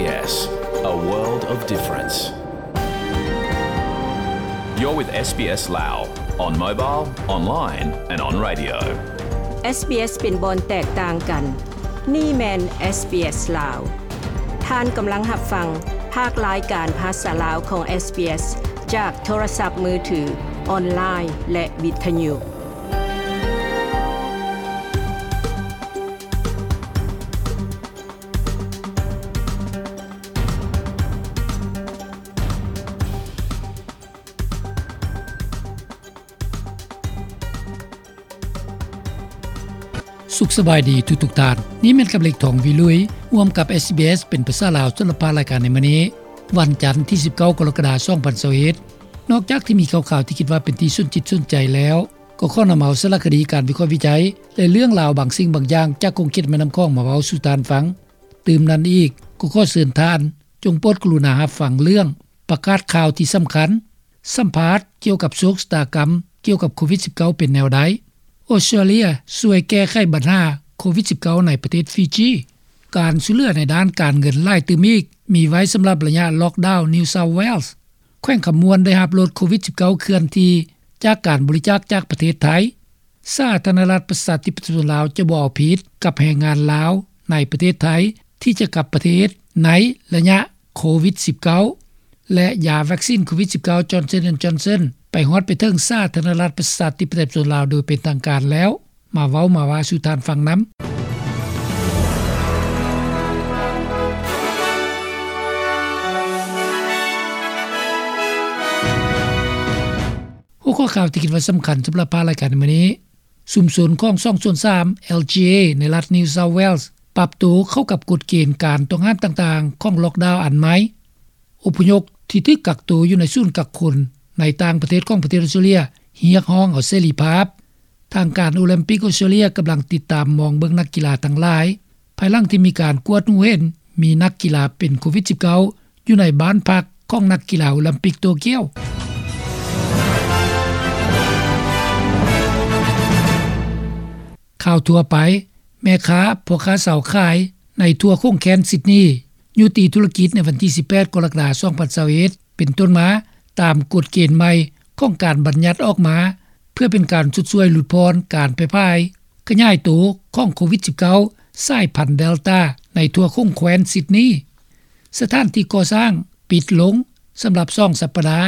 SBS, a world of difference. You're with SBS Lao on mobile, online and on radio. SBS ເປັນບ່ອນແຕກຕ່າງກັນ. ນີ້ແມ່ນ SBS ລາວ. ທ່ານກຳລັງຮັບຟັງພາກລາຍການພາສາລາວຂອງ SBS ຈາກໂທລະສັບມືຖື, ອອນລາຍ ແລະ ວິທະຍຸ. ສຸກສະບາຍດີທຸກໆທ່ານ. ນີ້ແມ່ນກັບເລັກ ທອງວິລຸຍ ຮ່ວມກັບ SBS ເປັນພາສາລາວ ສຳລັບພາກລາຍການໃນມື້ນີ້ ວັນຈັນ ທີສິບເກົ້າ ກໍລະກະດາ ສອງພັນຊາວເອັດ. ນອກຈາກທີ່ມີຂ່າວໆທີ່ຄິດວ່າເປັນທີ່ສົນຈິດສົນໃຈແລ້ວ, ກໍຂໍນຳເອົາສາລະຄະດີ, ການວິເຄາະວິໄຈ ແລະ ເລື່ອງລາວບາງສິ່ງບາງຢ່າງຈາກຂົງເຂດແມ່ນ້ຳຂອງມາເວົ້າສູ່ທ່ານຟັງ. ຕື່ມນັ້ນອີກ, ກໍຂໍເຊີນທ່ານ ຈົ່ງໂປດກະລຸນາຮັບຟັງເລື່ອງປະກາດຂ່າວທີ່ສຳຄັນ, ສຳພາດກ່ຽວກັບໂຊກຊະຕາກຳກ່ຽວກັບໂຄວິດສິບເກົ້າເປັນແນວໃດ, ອົດສະຕຣາເລຍຊ່ວຍແກ້ໄຂບັນຫາໂຄວິດສິບເກົ້າໃນປະເທດຟີຈີ, ການຊ່ວຍເຫຼືອໃນດ້ານການເງິນຫຼາຍຕື່ມອີກ ມີໄວ້ສຳລັບໄລຍະລັອກດາວ New South Wales, ແຂວງຄຳມ່ວນໄດ້ຮັບໂຫຼດໂຄວິດສິບເກົ້າເຄື່ອນທີ່ຈາກການບໍລິຈາກຈາກປະເທດໄທ, ສາທາລະນະລັດປະຊາທິປະໄຕປະຊາຊົນລາວຈະບໍ່ເອົາຜິດກັບແຮງງານລາວໃນປະເທດໄທທີ່ຈະກັບປະເທດໃນໄລຍະໂຄວິດສິບເກົ້າ ແລະ ຢາວັກຊີນໂຄວິດສິບເກົ້າ Johnson and Johnson ໄປຮອດໄປເຖິງສາທາລະນະລັດປະຊາທິປະໄຕປະຊາຊົນລາວໂດຍເປັນທາງການແລ້ວ. ມາເວົ້າມາວ່າສູ່ທ່ານຟັງນຳ. ຫົວຂໍ້ຂ່າວທີ່ຄິດວ່າສຳຄັນສຳລັບພາກລາຍການໃນມື້ນີ້, ຊຸມຊົນຂອງສອງສ່ວນສາມ LGA ໃນລັດ New South Wales ປັບໂຕເຂົ້າກັບກົດເກນການຕ້ອງຫ້າມຕ່າງໆຂອງລັອກດາວອັນໃໝ່. ອົບພະຍົບທີ່ຖືກກັກໂຕຢູ່ໃນສູນກັກຄົນໃນຕ່າງປະເທດຂອງປະເທດອົດສະຕຣາເລຍ ຮຽກຮ້ອງເອົາເສລີພາບ. ທາງການໂອລິມປິກອົດສະຕຣາເລຍກຳລັງຕິດຕາມມອງເບິ່ງນັກກິລາທັງຫຼາຍ ພາຍຫຼັງທີ່ມີການກວດຮູ້ເຫັນມີນັກກິລາເປັນໂຄວິດສິບເກົ້າ ຢູ່ໃນບ້ານພັກຂອງນັກກິລາໂອລິມປິກໂຕກຽວ. ຂ່າວທົ່ວໄປ, ແມ່ຄ້າ, ພໍ່ຄ້າຊາວຂາຍໃນທົ່ວຂົງແຄວ້ນຊິດນີ ຍຸຕິທຸລະກິດໃນວັນທີສິບແປດ ກໍລະກະດາ ສອງພັນຊາວເອັດ ເປັນຕົ້ນມາ ຕາມກົດເກນໃໝ່ຂອງການບັນຍັດອອກມາ ເພື່ອເປັນການຊົດຊ່ວຍຫຼຸດຜ່ອນການແຜ່ຜາຍຂະຫຍາຍໂຕຂອງໂຄວິດສິບເກົ້າ ສາຍພັນເດລຕາ ໃນທົ່ວຂົງແຄວ້ນຊິດນີ. ສະຖານທີ່ກໍ່ສ້າງປິດລົງສຳລັບສອງສັບປະດາ,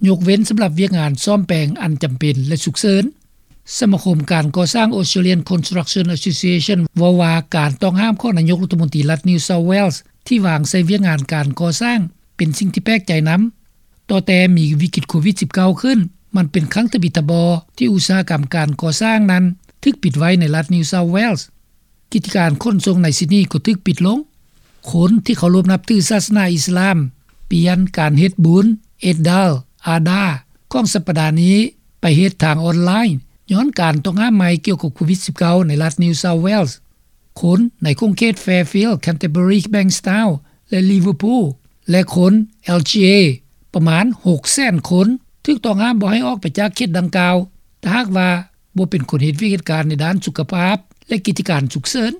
ຍົກເວັ້ນສຳລັບວຽກງານສ້ອມແປງອັນຈຳເປັນ ແລະ ສຸກເສີນ. ສະມາຄົມການກໍ່ສ້າງ Australian Construction Association ເວົ້າວ່າ ການຕ້ອງຫ້າມຂອງນາຍົກລັດຖະມົນຕີລັດ New South Wales ທີ່ວາງໃສ່ວຽກງານການກໍ່ສ້າງເປັນສິ່ງທີ່ແປກໃຈນຳ. ຕໍ່ແຕ່ມີວິກິດໂຄວິດສິບເກົ້າຂຶ້ນ, ມັນເປັນຄັ້ງທຳອິດທຳບໍ່ທີ່ອຸດສາຫະກຳການກໍ່ສ້າງນັ້ນຖືກປິດໄວ້ໃນລັດ New South Wales. ກິດຈະການຂົນສົ່ງໃນຊິດນີກໍຖືກປິດລົງ. ຄົນທີ່ເຄົາລົບນັບຖືສາສະໜາອິດສະລາມ ປ່ຽນການເຮັດບຸນ Eid al-Adha ຂອງສັບປະດານີ້ໄປເຮັດທາງອອນລາຍ ຍ້ອນການຕ້ອງຫ້າມໃໝ່ກ່ຽວກັບໂຄວິດສິບເກົ້າ ໃນລັດ New South Wales. ຄົນໃນຂົງເຂດ Fairfield, Canterbury, Bankstown ແລະ Liverpool ແລະ ຄົນ LGA ປະມານຫົກແສນຄົນ ຖືກຕ້ອງຫ້າມບໍ່ໃຫ້ອອກໄປຈາກເຂດດັ່ງກ່າວ ຖ້າຫາກວ່າບໍ່ເປັນຄົນເຮັດວຽກເຮັດການໃນດ້ານສຸຂະພາບ ແລະ ກິດຈະການສຸກເສີນ.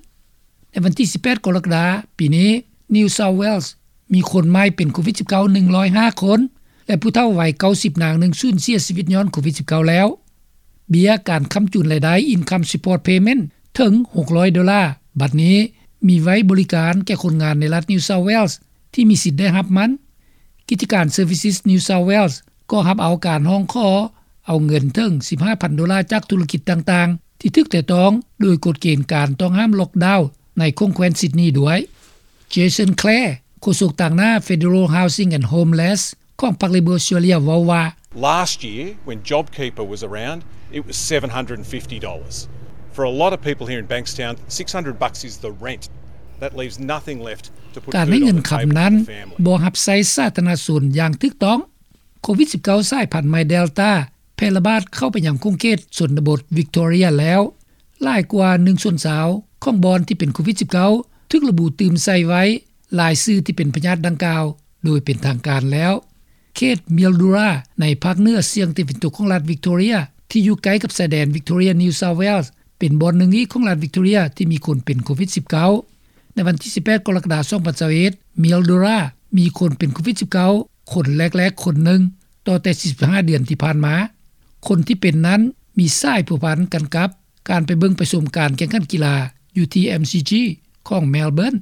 ໃນວັນທີສິບແປດ ກໍລະກະດາ ປີນີ້ New South Wales ມີຄົນໃໝ່ເປັນໂຄວິດສິບເກົ້າ ໜຶ່ງຮ້ອຍຫ້າຄົນ ແລະ ຜູ້ເຖົ້າໄວເກົ້າສິບນາງໜຶ່ງສູນເສຍຊີວິດຍ້ອນໂຄວິດສິບເກົ້າແລ້ວ. ເບ້ຍການຄ້ຳຈູນລາຍໄດ້ Income Support Payment ເຖິງຫົກຮ້ອຍໂດລາ ບັດນີ້ມີໄວ້ບໍລິການແກ່ຄົນງານໃນລັດ New South Wales ທີ່ມີສິດໄດ້ຮັບມັນ. ກິດຈະການ Services New South Wales ກໍຮັບເອົາການຮ້ອງຂໍເອົາເງິນເຖິງສິບຫ້າພັນໂດລາຈາກທຸລະກິດຕ່າງໆ ທີ່ຖືກແຕະຕ້ອງໂດຍກົດເກນການຕ້ອງຫ້າມລັອກດາວໃນຂົງແຄວ້ນຊິດນີດ້ວຍ. Jason Clare ໂຄສົກຕາງໜ້າ Federal Housing and Homeless ຂອງພັກ Labor Australia ເວົ້າວ່າ, Last year, when JobKeeper was around, it was seven hundred and fifty dollars. For a lot of people here in Bankstown, six hundred bucks is the rent. That leaves nothing left to put food on the table for the family. ການໃຫ້ເງິນຄຳນັ້ນບໍ່ຮັບໃຊ້ສາທາລະນະຊົນຢ່າງຖືກຕ້ອງ. ໂຄວິດສິບເກົ້າ ສາຍພັນໃໝ່ Delta ແຜ່ລະບາດເຂົ້າໄປຍັງຂົງເຂດຊົນນະບົດ Victoria ແລ້ວ. ຫຼາຍກວ່າໜຶ່ງສ່ວນຊາວຂອງບ່ອນທີ່ເປັນໂຄວິດສິບເກົ້າ ຖືກລະບຸຕື່ມໃສ່ໄວ້ລາຍຊື່ທີ່ເປັນພະຍາດດັ່ງກ່າວໂດຍເປັນທາງການແລ້ວ. ເຂດ Mildura ໃນພາກເໜືອສຽງຕາເວັນຕົກຂອງລັດ Victoria ທີ່ຢູ່ໃກ້ກັບຊາຍແດນ Victoria New South Wales ເປັນບ່ອນໜຶ່ງອີກຂອງລັດ Victoria ທີ່ມີຄົນເປັນໂຄວິດສິບເກົ້າ. ໃນວັນທີສິບແປດ ກໍລະກະດາ ສອງພັນຊາວເອັດ ເມລໂດຣາ ມີຄົນເປັນໂຄວິດ-19 ຄົນແລກໆຄົນໜຶ່ງ ຕໍ່ແຕ່ ສີ່ສິບຫ້າ ເດືອນທີ່ຜ່ານມາ. ຄົນທີ່ເປັນນັ້ນມີສາຍພົວພັນກັນກັບ ການໄປເບິ່ງໄປຊົມການແຂ່ງຂັນກິລາຢູ່ທີ່ MCG ຂອງ Melbourne.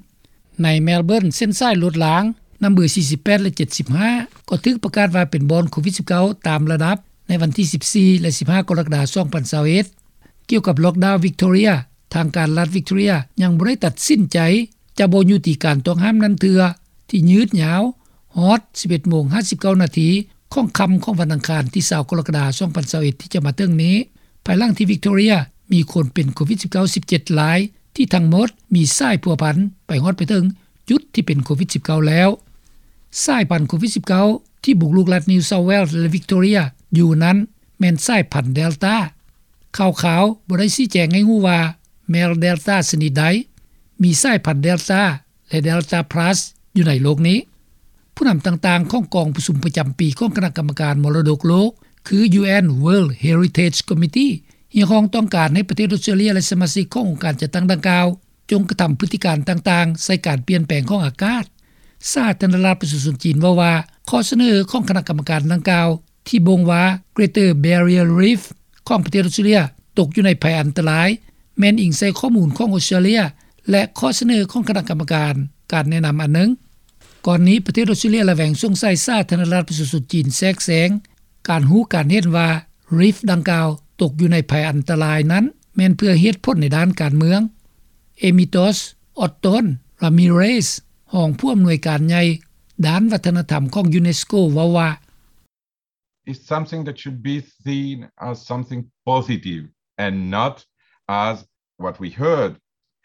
ໃນ Melbourne ເສັ້ນສາຍລົດລາງ ນຳເບີ ສີ່ສິບແປດ ແລະ ເຈັດສິບຫ້າ ກໍຖືກປະກາດວ່າເປັນບ່ອນໂຄວິດ-19 ຕາມລະດັບ ໃນວັນທີ ສິບສີ່ ແລະ ສິບຫ້າ ກໍລະກະດາ ສອງພັນຊາວເອັດ. ກ່ຽວກັບ Lockdown Victoria, ທາງການລັດ Victoria ຍັງບໍ່ໄດ້ຕັດສິນໃຈ ຈະບໍ່ຍຸຕິການຕ້ອງຫ້າມນັ້ນເທື່ອ ທີ່ຍືດຍາວຮອດ ສິບເອັດໂມງ ຫ້າສິບເກົ້ານາທີ ຂອງຄ່ຳຂອງວັນອັງຄານ ທີ ຊາວ ກໍລະກະດາ ສອງພັນຊາວເອັດ ທີ່ຈະມາເຖິງນີ້, ພາຍຫຼັງທີ່ Victoria ມີຄົນເປັນໂຄວິດ-19 ສິບເຈັດລາຍ ທີ່ທັງໝົດມີສາຍພົວພັນໄປຮອດໄປເຖິງຈຸດທີ່ເປັນໂຄວິດ-19 ແລ້ວ. ສາຍພັນໂຄວິດ-19 ທີ່ບຸກລຸກລັດ New South Wales ແລະ Victoria ຢູ່ນັ້ນ ແມ່ນສາຍພັນ Delta. ຂ່າວຄາວບໍ່ໄດ້ຊີ້ແຈງໃຫ້ຮູ້ວ່າແມ່ນ Delta ຊະນິດໃດ, ມີສາຍພັນ Delta ແລະ Delta Plus ຢູ່ໃນໂລກນີ້. ຜູ້ນຳຕ່າງໆຂອງກອງປະຊຸມປະຈຳປີຂອງຄະນະກຳມະການມໍລະດົກໂລກ ຄື UN World Heritage Committee ຮຽກຮ້ອງຕ້ອງການໃຫ້ປະເທດອອສເຕຣເລຍ ແລະ ສະມາຊິກຂອງອົງການຈັດຕັ້ງດັ່ງກ່າວ ຈົ່ງກະທຳພຶດຕິການຕ່າງໆໃສ່ການປ່ຽນແປງຂອງອາກາດ. ສາທາລະນະລັດປະຊາຊົນຈີນເວົ້າວ່າ ຂໍ້ສະເໜີຂອງຄະນະກຳມະການດັ່ງກ່າວ ທີ່ບົ່ງວ່າ Greater Barrier Reef ຂອງປະເທດອອສເຕຣເລຍຕົກຢູ່ໃນໄພອັນຕະລາຍ ແມ່ນອີງໃສ່ຂໍ້ມູນຂອງອອສເຕຣເລຍ ແລະ ຂໍ້ສະເໜີຂອງຄະນະກຳມະການການແນະນຳອັນໜຶ່ງ. ກ່ອນນີ້ປະເທດອອສເຕຣເລຍລະແວງສົງໄສສາທາລະນະລັດປະຊາຊົນຈີນແຊກແຊງການຮູ້ການເຫັນວ່າ Reef ດັ່ງກ່າວຕົກຢູ່ໃນໄພອັນຕະລາຍນັ້ນ ແມ່ນເພື່ອເຫດຜົນໃນດ້ານການເມືອງ. Amitos Otton Ramirez ຮອງຜູ້ອຳນວຍການໃຫຍ່ດ້ານວັດທະນະທຳຂອງ UNESCO ເວົ້າວ່າ It's something that should be seen as something positive and not as what we heard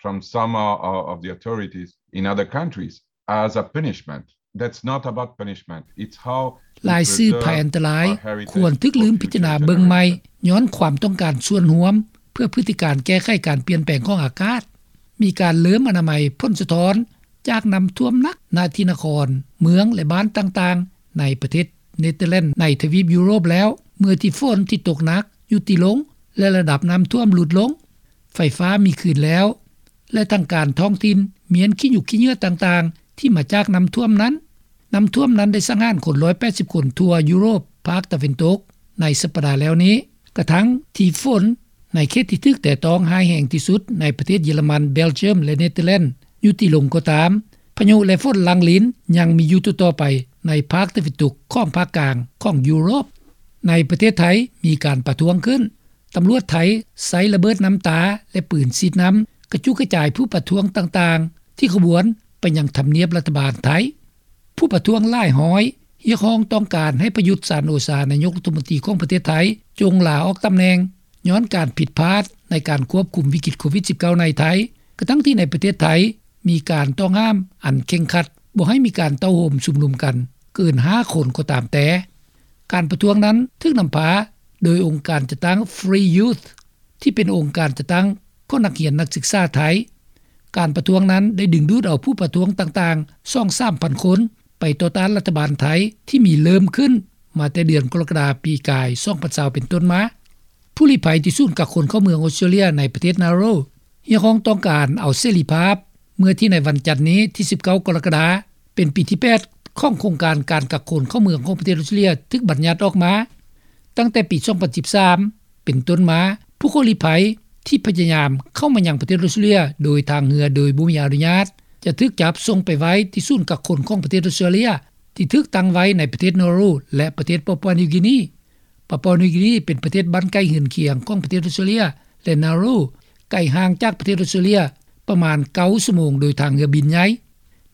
from some o- of the authorities in other countries as a punishment. That's not about punishment. It's how ລາຍຊື່ໄພອັນຕະລາຍຄວນຖືກລືມພິຈາລະນາເບິ່ງໃໝ່ ຍ້ອນຄວາມຕ້ອງການສ່ວນຮວມ ເພື່ອພຶດຕິການແກ້ໄຂການປ່ຽນແປງຂອງອາກາດ. ມີການເລີ່ມອະນາໄມຜົນສະທ້ອນຈາກນ້ຳຖ້ວມໜັກນະທີ່ນະຄອນ, ເມືອງ ແລະ ບ້ານຕ່າງໆ ໃນປະເທດເນເທີແລນໃນທະວີບຢູໂຣບແລ້ວ ເມື່ອທີ່ຝົນທີ່ຕົກໜັກຢຸດຕິລົງ ແລະ ລະດັບນ້ຳຖ້ວມຫຼຸດລົງ. ໄຟຟ້າມີຄືນແລ້ວ ແລະ ທາງການທ້ອງຖິ່ນມ້ຽນຂີ້ຫຍຸກຂີ້ເຫຍື້ອຕ່າງໆ ທີ່ມາຈາກນ້ຳຖ້ວມນັ້ນ. ນ້ຳຖ້ວມນັ້ນໄດ້ສັງຫານຄົນ ໜຶ່ງຮ້ອຍແປດສິບຄົນທົ່ວຢູໂຣບພາກຕາເວັນຕົກໃນສັບປະດາແລ້ວນີ້. ກະທັ່ງທີ່ຝົນໃນເຂດທີ່ຖືກແຕະຕ້ອງຮ້າຍແຮງທີ່ສຸດໃນປະເທດເຢຍລະມັນ, ເບລຈຽມ ແລະ ເນເທີແລນຢຸດຕິລົງກໍຕາມ, ພາຍຸ ແລະ ຝົນຫຼັງລິນຍັງມີຢູ່ຕໍ່ໆໄປໃນພາກຕາເວັນຕົກຂອງພາກກາງຂອງຢູໂຣບ. ໃນປະເທດໄທມີການປະທ້ວງຂຶ້ນ. ຕຳຫຼວດໄທໃຊ້ລະເບີດນ້ຳຕາ ແລະ ປືນສີດນ້ຳກະຈຸກກະຈາຍຜູ້ປະທ້ວງຕ່າງໆ ທີ່ຂະບວນໄປຍັງທຳນຽບລັດຖະບານໄທ. ຜູ້ປະທ້ວງຫຼາຍຮ້ອຍຮຽກຮ້ອງຕ້ອງການໃຫ້ປະຍຸດ ຈັນໂອຊາ ນາຍົກລັດຖະມົນຕີຂອງປະເທດໄທ ຈົ່ງລາອອກຕຳແໜ່ງ ຍ້ອນການຜິດພາດໃນການຄວບຄຸມວິກິດໂຄວິດ-19 ໃນໄທ, ກະທັ່ງທີ່ໃນປະເທດໄທມີການຕ້ອງຫ້າມອັນເຄັ່ງຄັດ ບໍ່ໃຫ້ມີການເຕົ້າໂຮມຊຸມນຸມກັນເກີນຫ້າຄົນກໍຕາມແຕ່. ການປະທ້ວງນັ້ນຖືກນຳພາໂດຍອົງການຈັດຕັ້ງ Free Youth ທີ່ເປັນອົງການຈັດຕັ້ງຂອງນັກຮຽນນັກສຶກສາໄທ. ການປະທ້ວງນັ້ນໄດ້ດຶງດູດເອົາຜູ້ປະທ້ວງຕ່າງໆ ສອງສາມພັນຄົນ ໄປຕໍ່ຕ້ານລັດຖະບານໄທ ທີ່ມີເລີ່ມຂຶ້ນມາແຕ່ເດືອນກໍລະກະດາປີກາຍ ສອງພັນຊາວ ເປັນຕົ້ນມາ. ຜູ້ລີ້ໄພທີ່ສູນກັກຄົນເຂົ້າເມືອງອອສເຕຣເລຍໃນປະເທດ Nauru ຮຽກຮ້ອງຕ້ອງການເອົາເສລີພາບ ເມື່ອທີ່ໃນວັນຈັນນີ້ທີ ສິບເກົ້າ ກໍລະກະດາ ເປັນປີທີ ແປດ ຂອງໂຄງການການກັກຄົນເຂົ້າເມືອງຂອງປະເທດອອສເຕຣເລຍຖືກບັນຍັດອອກມາ. ຕັ້ງແຕ່ປີ ສອງພັນສິບສາມ ເປັນຕົ້ນມາ, ຜູ້ຂໍລີ້ໄພທີ່ພະຍາຍາມເຂົ້າມາຍັງປະເທດອອສເຕຣເລຍໂດຍທາງເຮືອໂດຍບໍ່ມີອະນຸຍາດ ຈະຖືກຈັບສົ່ງໄປໄວ້ທີ່ສູນກັກຄົນຂອງປະເທດອອສເຕຣເລຍ ທີ່ຖືກຕັ້ງໄວ້ໃນປະເທດ Nauru ແລະ ປະເທດປາປົວນິວກີນີ. ປາປົວນິວກີນີເປັນປະເທດບ້ານໃກ້ເຮືອນຄຽງຂອງປະເທດອອສເຕຣເລຍ ແລະ Nauru ໄກຫ່າງຈາກປະເທດອອສເຕຣເລຍປະມານ ເກົ້າຊົ່ວໂມງໂດຍທາງເຮືອບິນໃຫຍ່.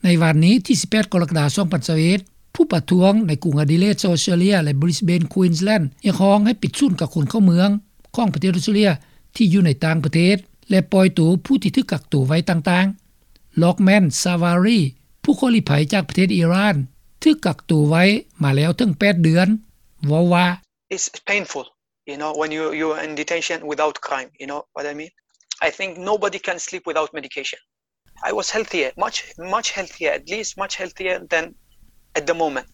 ໃນວັນນີ້ທີ ສິບແປດ ກໍລະກະດາ ສອງພັນຊາວເອັດ ຜູ້ປະທ້ວງໃນກຸງອະດີເລດ ຊາວອອສເຕຣເລຍ ແລະ ບຣິສເບນ ຄວີນສ໌ແລນ ຮຽກຮ້ອງໃຫ້ປິດສູນກັກຄົນເຂົ້າເມືອງຂອງປະເທດອອສເຕຣເລຍທີ່ຢູ່ໃນຕ່າງປະເທດ ແລະ ປ່ອຍໂຕຜູ້ທີ່ຖືກກັກໂຕໄວ້ຕ່າງໆ. ລັອກແມນ ຊາວາຣີ ຜູ້ຂໍລີ້ໄພຈາກປະເທດອີຣານ ຖືກກັກໂຕໄວ້ມາແລ້ວເຖິງ ແປດເດືອນ ເວົ້າວ່າ It's painful, you know, when you, you're in detention without crime, you know what I mean? I think nobody can sleep without medication. I was healthier, much, much healthier, at least much healthier than at the moment.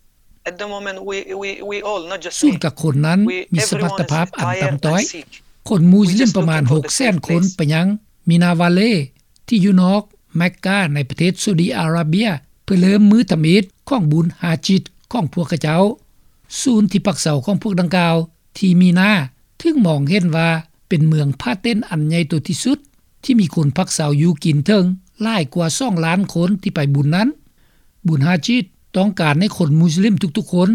At the moment, we, we, we all, not just me, ສູນກັກຄົນນັ້ນມີສະມັດຕະພາບອັນຕ່ຳຕ້ອຍ. ຄົນມຸສລິມປະມານ ຫົກແສນຄົນ ໄປຍັງມິນາວາເລ ທີ່ຢູ່ນອກແມັກກາ ໃນປະເທດຊາອຸດີອາຣາເບຍ ເພື່ອເລີ່ມມື້ທຳອິດຂອງບຸນຮາຈິດຂອງພວກເຂົາເຈົ້າ. ສູນທີ່ພັກເຊົາຂອງພວກດັ່ງກ່າວທີ່ມີນາ ຖືກມອງເຫັນວ່າເປັນເມືອງພາເຕັນອັນໃຫຍ່ໂຕທີ່ສຸດ ທີ່ມີຄົນພັກເຊົາຢູ່ກິນເຖິງຫຼາຍກວ່າສອງລ້ານຄົນທີ່ໄປບຸນນັ້ນ. ບຸນຮາຈິດຕ້ອງການໃຫ້ຄົນມຸສລິມທຸກໆຄົນ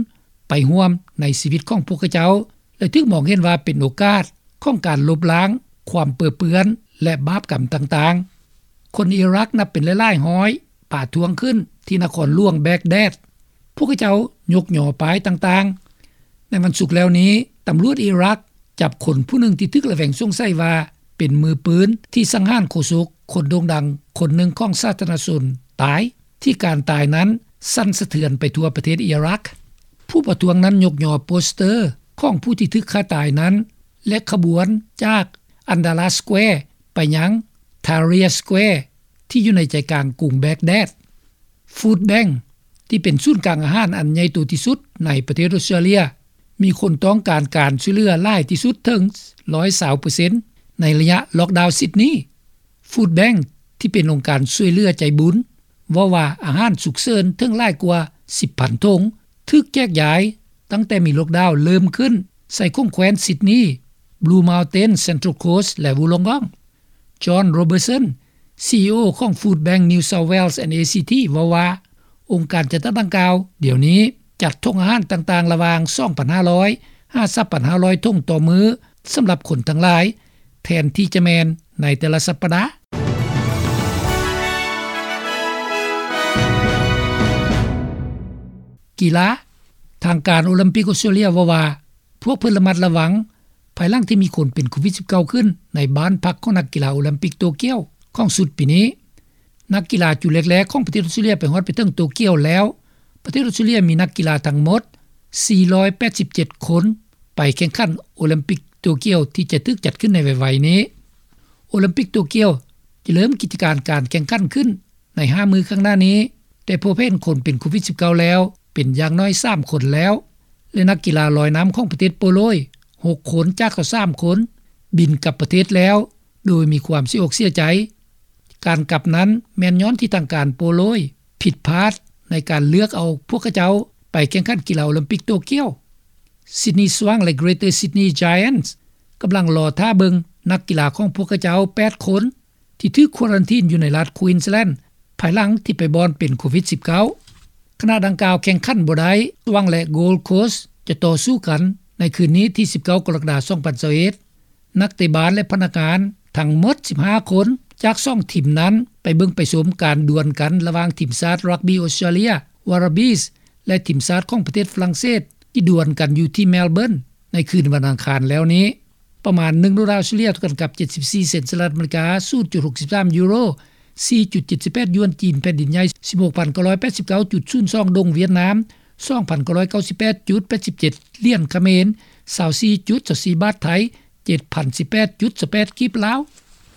ໄປຮ່ວມໃນຊີວິດຂອງພວກເຂົາເຈົ້າ ແລະ ຖືກມອງເຫັນວ່າເປັນໂອກາດຂອງການລົບລ້າງຄວາມເປິເປື້ອນ ແລະ ບາບກຳຕ່າງໆ. ຄົນອີຣັກນັບເປັນຫຼາຍໆຮ້ອຍປະທ້ວງຂຶ້ນທີ່ນະຄອນຫຼວງແບກແດດ. ພວກເຂົາເຈົ້າຍົກຍໍປ້າຍຕ່າງໆ. ໃນວັນສຸກແລ້ວນີ້, ຕຳຫຼວດອີຣັກຈັບຄົນຜູ້ໜຶ່ງທີ່ຖືກລະແວງສົງໄສວ່າເປັນມືປືນທີ່ສັງຫານໂຄສົກຄົນໂດ່ງດັງຄົນໜຶ່ງຂອງສາທາລະນະຊົນຕາຍ, ທີ່ການຕາຍນັ້ນສັ່ນສະເທືອນໄປທົ່ວປະເທດອີຣັກ. ຜູ້ປະທ້ວງນັ້ນຍົກຍໍໂປສເຕີຂອງຜູ້ທີ່ຖືກຂ້າຕາຍນັ້ນ ແລະ ຂະບວນຈາກ Andala Square ໄປຍັງ Tahrir Square ທີ່ຢູ່ໃນໃຈກາງກຸງແບກແດດ. Food Bank ທີ່ເປັນສູນກາງອາຫານອັນໃຫຍ່ໂຕທີ່ສຸດໃນປະເທດອົດສະຕຣາເລຍ ມີຄົນຕ້ອງການການຊ່ວຍເຫຼືອຫຼາຍທີ່ສຸດເຖິງຮ້ອຍຊາວເປີເຊັນໃນໄລຍະລ໊ອກດາວຊິດນີ. Food Bank ທີ່ເປັນອົງການຊ່ວຍເຫຼືອໃຈບຸນ ເວົ້າວ່າອາຫານສຸກເສີນເຖິງຫຼາຍກວ່າສິບພັນຖົງ ຖືກແຈກຢາຍຕັ້ງແຕ່ມີລ໊ອກດາວເລີ່ມຂຶ້ນໃສ່ຂົງແຄວ້ນຊິດນີ, Blue Mountain, Central Coast ແລະ Wollongong. John Robertson, ຊີອີໂອ ຂອງ Food Bank New South Wales and ACT ເວົ້າວ່າ ອົງການຈັດຕັ້ງດັ່ງກ່າວດຽວນີ້ຈັດຖົງອາຫານຕ່າງໆລະຫວ່າງສອງພັນຫ້າຮ້ອຍຫາສາມພັນຫ້າຮ້ອຍຖົງຕໍ່ມື້ສຳລັບຄົນທັງຫຼາຍ ແທນທີ່ຈະແມ່ນໃນແຕ່ລະສັບປະດາ. ກິລາ. ທາງການໂອລິມປິກອົດສະຕຣາເລຍເວົ້າວ່າ ພວກເພິ່ນລະມັດລະວັງ ພາຍຫຼັງທີ່ມີຄົນເປັນໂຄວິດສິບເກົ້າຂຶ້ນໃນບ້ານພັກຂອງນັກກິລາໂອລິມປິກໂຕກຽວຂອງຊຸດປີນີ້. ນັກກິລາຈຸດແລກໆຂອງປະເທດອົດສະຕຣາເລຍໄປຮອດໄປເຖິງໂຕກຽວແລ້ວ. ປະເທດອົດສະຕຣາເລຍມີນັກກິລາທັງໝົດສີ່ຮ້ອຍແປດສິບເຈັດຄົນ ໄປແຂ່ງຂັນໂອລິມປິກໂຕກຽວທີ່ຈະຖືກຈັດຂຶ້ນໃນໄວໆນີ້. ໂອລິມປິກໂຕກຽວຈະເລີ່ມກິດຈະການການແຂ່ງຂັນຂຶ້ນໃນຫ້າມື້ຂ້າງໜ້ານີ້, ແຕ່ພົບເຫັນຄົນເປັນໂຄວິດສິບເກົ້າແລ້ວເປັນຢ່າງໜ້ອຍສາມຄົນແລ້ວ ແລະ ນັກກິລາລອຍນ້ຳຂອງປະເທດໂປໂລຍຫົກຄົນຈາກຊາວສາມຄົນບິນກັບປະເທດແລ້ວ ໂດຍມີຄວາມເສຍອົກເສຍໃຈ. ການກັບນັ້ນແມ່ນຍ້ອນທີ່ທາງການໂປໂລຍຜິດພາດໃນການເລືອກເອົາພວກເຂົາເຈົ້າໄປແຂ່ງຂັນກິລາໂອລິມປິກໂຕກຽວ. Sydney Swans ແລະ Greater Sydney Giants ກຳລັງລໍຖ້າເບິ່ງນັກກິລາຂອງພວກເຂົາເຈົ້າແປດຄົນ ທີ່ຖືກຄວາຣັນທີນຢູ່ໃນລັດ Queensland ພາຍຫຼັງທີ່ໄປບ່ອນເປັນໂຄວິດສິບເກົ້າ. ຂະນະດັ່ງກ່າວແຂ່ງຂັນບໍ່ໄດ້, Swans ແລະ Gold Coast ຈະຕໍ່ສູ້ກັນໃນຄືນນີ້ທີສິບເກົ້າ ກໍລະກະດາ ສອງພັນຊາວເອັດ. ນັກເຕະບານ ແລະ ພະນັກງານທັງໝົດສິບຫ້າຄົນຈາກສອງທີມນັ້ນ ໄປເບິ່ງໄປຊົມການດວນກັນລະຫວ່າງທີມຊາດຣັກບີ້ອົດສະຕຣາເລຍ Wallabies ແລະ ທີມຊາດຂອງປະເທດຝຣັ່ງເສດ ທີ່ດວນກັນຢູ່ທີ່ Melbourne ໃນຄືນວັນອັງຄານແລ້ວນີ້. ປະມານໜຶ່ງໂດລາອົດສະຕຣາເລຍ ເທົ່າກັນກັບເຈັດສິບສີ່ເຊັນສະຫະລັດອາເມລິກາ, ສູນຈຸດຫົກສິບສາມຢູໂຣ, ສີ່ຈຸດເຈັດສິບແປດຢວນຈີນແຜ່ນດິນໃຫຍ່, ສິບຫົກພັນເກົ້າຮ້ອຍແປດສິບເກົ້າຈຸດສູນສອງດົງຫວຽດນາມ, ສອງພັນເກົ້າຮ້ອຍເກົ້າສິບແປດຈຸດແປດສິບເຈັດຫຼຽນຂະເໝນ, ຊາວສີ່ຈຸດຊາວສີ່ບາດໄທ, ເຈັດພັນສິບແປດຈຸດຊາວແປດກີບລາວ.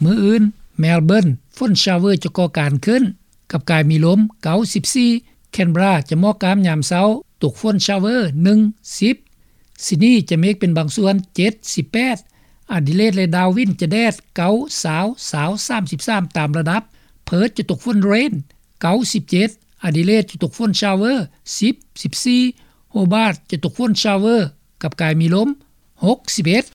ມື້ອື່ນ Melbourne ຝົນ shower ຈະກໍ່ການຂຶ້ນ ກັບກາຍມີລົມເກົ້າສິບສີ່, Canberra ຈະໝອກກ້າມຍາມເຊົ້າ ຕົກຝົນ shower ໜຶ່ງ ສິບ, Sydney ຈະເມກເປັນບາງສ່ວນ ເຈັດ ສິບແປດ, Adelaide ແລະ Darwin ຈະແດດ ເກົ້າ ຊາວ ຊາວ ສາມສິບສາມຕາມລະດັບ, Perth ຈະຕົກຝົນ rain ເກົ້າ ສິບເຈັດ, Adelaide ຈະຕົກຝົນ shower ສິບ ສິບສີ່, Hobart ຈະຕົກຝົນ shower ກັບກາຍມີລົມ ຫົກ ສິບເອັດ.